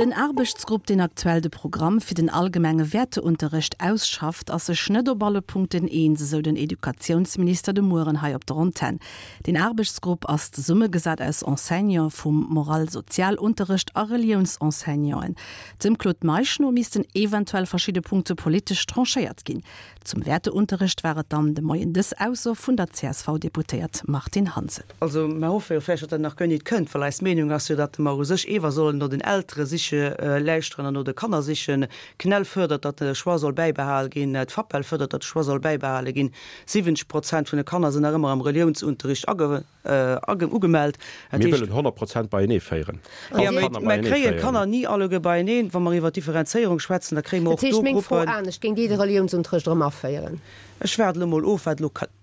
Den Aarbechtsgrupp, deen aktuell de Programm fir den allgemenge Wäerteunterrecht ausschafft, ass sech net op alle Punkten eens, esou den Educatiounsminister de Mueren hei op der Antenn. Deen Aarbechtsgrupp ass zesummegesat aus Enseignante vum Moral-Sozialunterrecht a Reliounsenseignanten. Dem Claude Meisch no missten eventuell verschidde Punkte politesch tranchéiert ginn. Zum Wäerteunterrecht war et dann de Moien dës Ausso vun der CSV-Deputéiert Martine Hansen. Also mer hoffe jo vläicht, datt dat nach guer nit kënnt, well eis Meenung ass jo, datt mer u sech ewer sollen no den Eltere siche lauschteren an no de Kanner sichen. D'CNEL fuerdert, datt de Choix soll bäibehal ginn, d'FAPEL fuerdert, datt de Choix soll bäibehale ginn. 70 Prozent vun de Kanner sinn nach ëmmer am Reliounsunterricht ugemellt. Dat Mir heescht. wëllen 100 Prozent beienee féieren. All Jo, Kanner mä beienee kréien féieren. d'Kanner ni alleguer beieneen. Wa mer iwwer Differenzéierung schwätzen, da kréie mer Dat och heescht, do meng Fro Gruppen. anescht, Géingt Dir de Reliounsunterrecht erëm aféieren? Ech waarde elo mol of, wat elo kënnt.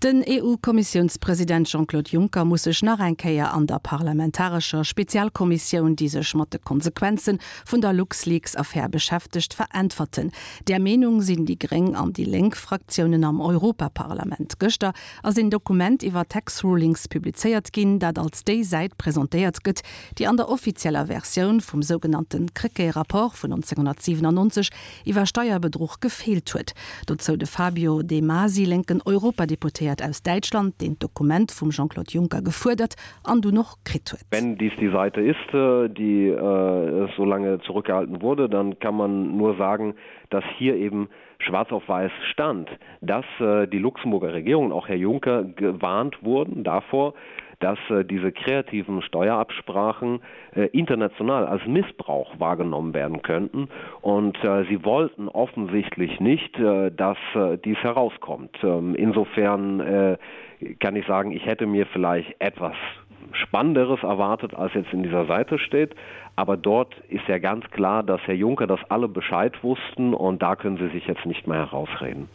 Den EU-Kommissiounspresident Jean-Claude Juncker muss sech nach eng Kéier an der parlamentarescher Spezialkommissioun, déi sech mat de Konsequenze vun der LuxLeaks-Affär beschäftegt, veräntwerten. Där Meenung sinn déi gréng an déi lénk Fraktiounen am Europaparlament. Gëschter ass een Dokument iwwer Tax Rulings publizéiert ginn, dat als déi Säit presentéiert gëtt, déi an der offizieller Versioun vum sougenannte Krecké-Rapport vun 1997 iwwer Steierbedruch gefeelt huet. Dozou de Fabio De Masi, lénken Europadeputéiert aus Däitschland, deen d'Dokument vum Jean-Claude Juncker gefuerdert an dunn och kritt huet. Wenn dies die Seite ist, die so lange zurückgehalten wurde, dann kann man nur sagen, dass hier eben schwarz auf weiß stand, dass die Luxemburger Regierung und auch Herr Juncker gewarnt wurden davor, dass diese kreativen Steuerabsprachen international als Missbrauch wahrgenommen werden könnten. Und sie wollten offensichtlich nicht, dass dies herauskommt. Insofern kann ich sagen, ich hätte mir vielleicht etwas Spannenderes erwartet, als jetzt in dieser Seite steht. Aber dort ist ja ganz klar, dass Herr Juncker das alle Bescheid wussten und da können sie sich jetzt nicht mehr herausreden.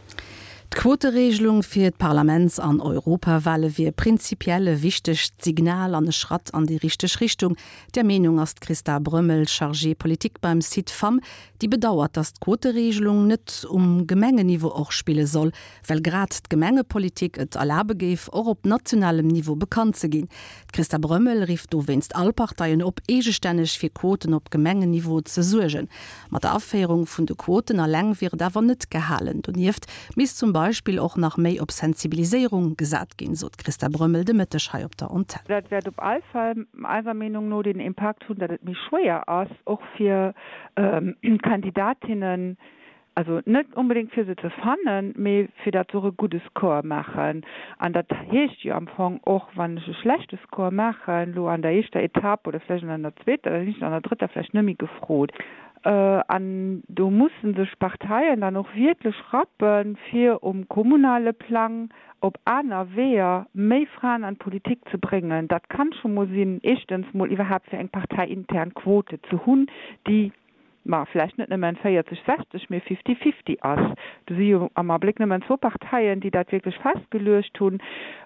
D'Quoteregelung fir d'Parlaments an Europawale wier prinzipiell e wichtegt Signal an e Schratt an déi richteg Richtung. Där Meenung ass d'Christa Brömmel, Chargée politique beim Cid-Femmes, déi bedauert, datt d'Quoteregelung net um Gemengenniveau och spille soll, well grad d'Gemengepolitik et erlabe géif, och op nationalem Niveau bekannt ze ginn. D'Christa Brömmel rifft dowéinst all Parteien op, eegestänneg fir Quoten op Gemengenniveau ze suergen. Mat der Aféierung vun de Quoten alleng wier et awer net gehalen. Donieft misst zum Beispill och nach méi op Sensibiliséierung gesat ginn, sot d'Christa Brömmel de Mëtteg hei op der Antenn. Dat wäert op all Fall eiser Meenung no den Impakt hunn, datt et méi schwéier ass, och fir Kandidatinnen, Also net onbedéngt fir se ze fannen, mee fir datt se och e gudde Score maachen. An dat heescht jo am Fong och, wann ech e schlechte Score maachen elo an der éischter Etapp oder vläicht an der zweeter, da sinn ech an der drëtter vläicht net méi gefrot. An do musse sech d'Parteien dann och wierklech rappen, fir um kommunale Plang op aner Weeër méi Fraen an d'Politik ze bréngen. Dat kann scho mol sinn, éischtens mol iwwerhaapt fir eng parteiintern Quote ze hunn, déi ma vläicht net nëmmen 40, 60, mee fifty, fifty ass. Do si jo am Abléck nëmmen zwou Parteien, déi dat wierklech festgeluecht hunn.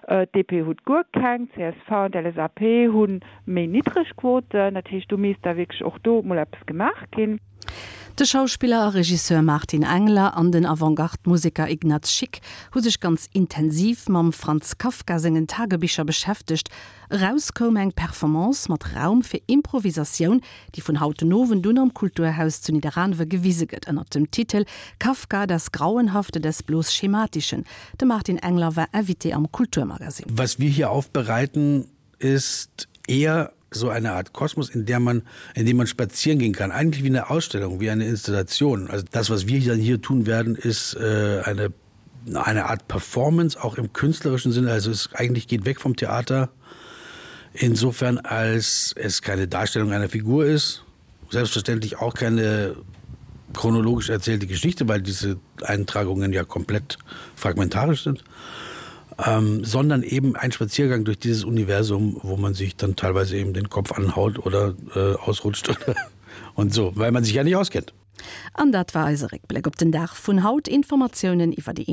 D'DP huet guer keng, csv an d'LSAP hu méi niddreg Quoten. Dat heescht, do misst da wierklech och do mol eppes gemaach ginn. De Schauspiller a Regisseur Martin Engler an den Avantgarde-Museker Ignaz Schick hu sech ganz intensiv mam Franz Kafka sengen Tagebicher beschäftegt. Eraus koum eng Performance mat Raum fir Improvisatioun, déi vun haut den Owend un am Kulturhaus zu Nidderaanwe gewise gëtt ënnert dem Titel Kafka, das Grauenhafte des bloß Schematischen. De Martin Engler war Invité am Kulturmagazin. Was wir hier aufbereiten, ist eher so eine Art Kosmos, in der man in dem man spazieren gehen kann, eigentlich wie eine Ausstellung, wie eine Installation. Also das, was wir dann hier tun werden, ist äh, eine eine Art Performance auch im künstlerischen Sinne also es eigentlich geht weg vom Theater insofern als es keine Darstellung einer Figur ist selbstverständlich auch keine chronologisch erzählte Geschichte weil diese Eintragungen ja komplett fragmentarisch sind ähm, sondern eben ein Spaziergang durch dieses Universum wo man sich dann teilweise eben den Kopf anhaut oder äh, ausrutscht oder und so weil man sich ja nicht auskennt An dat war eise Réckbléck op den Dag vun haut. Informatiounen iwwer déi.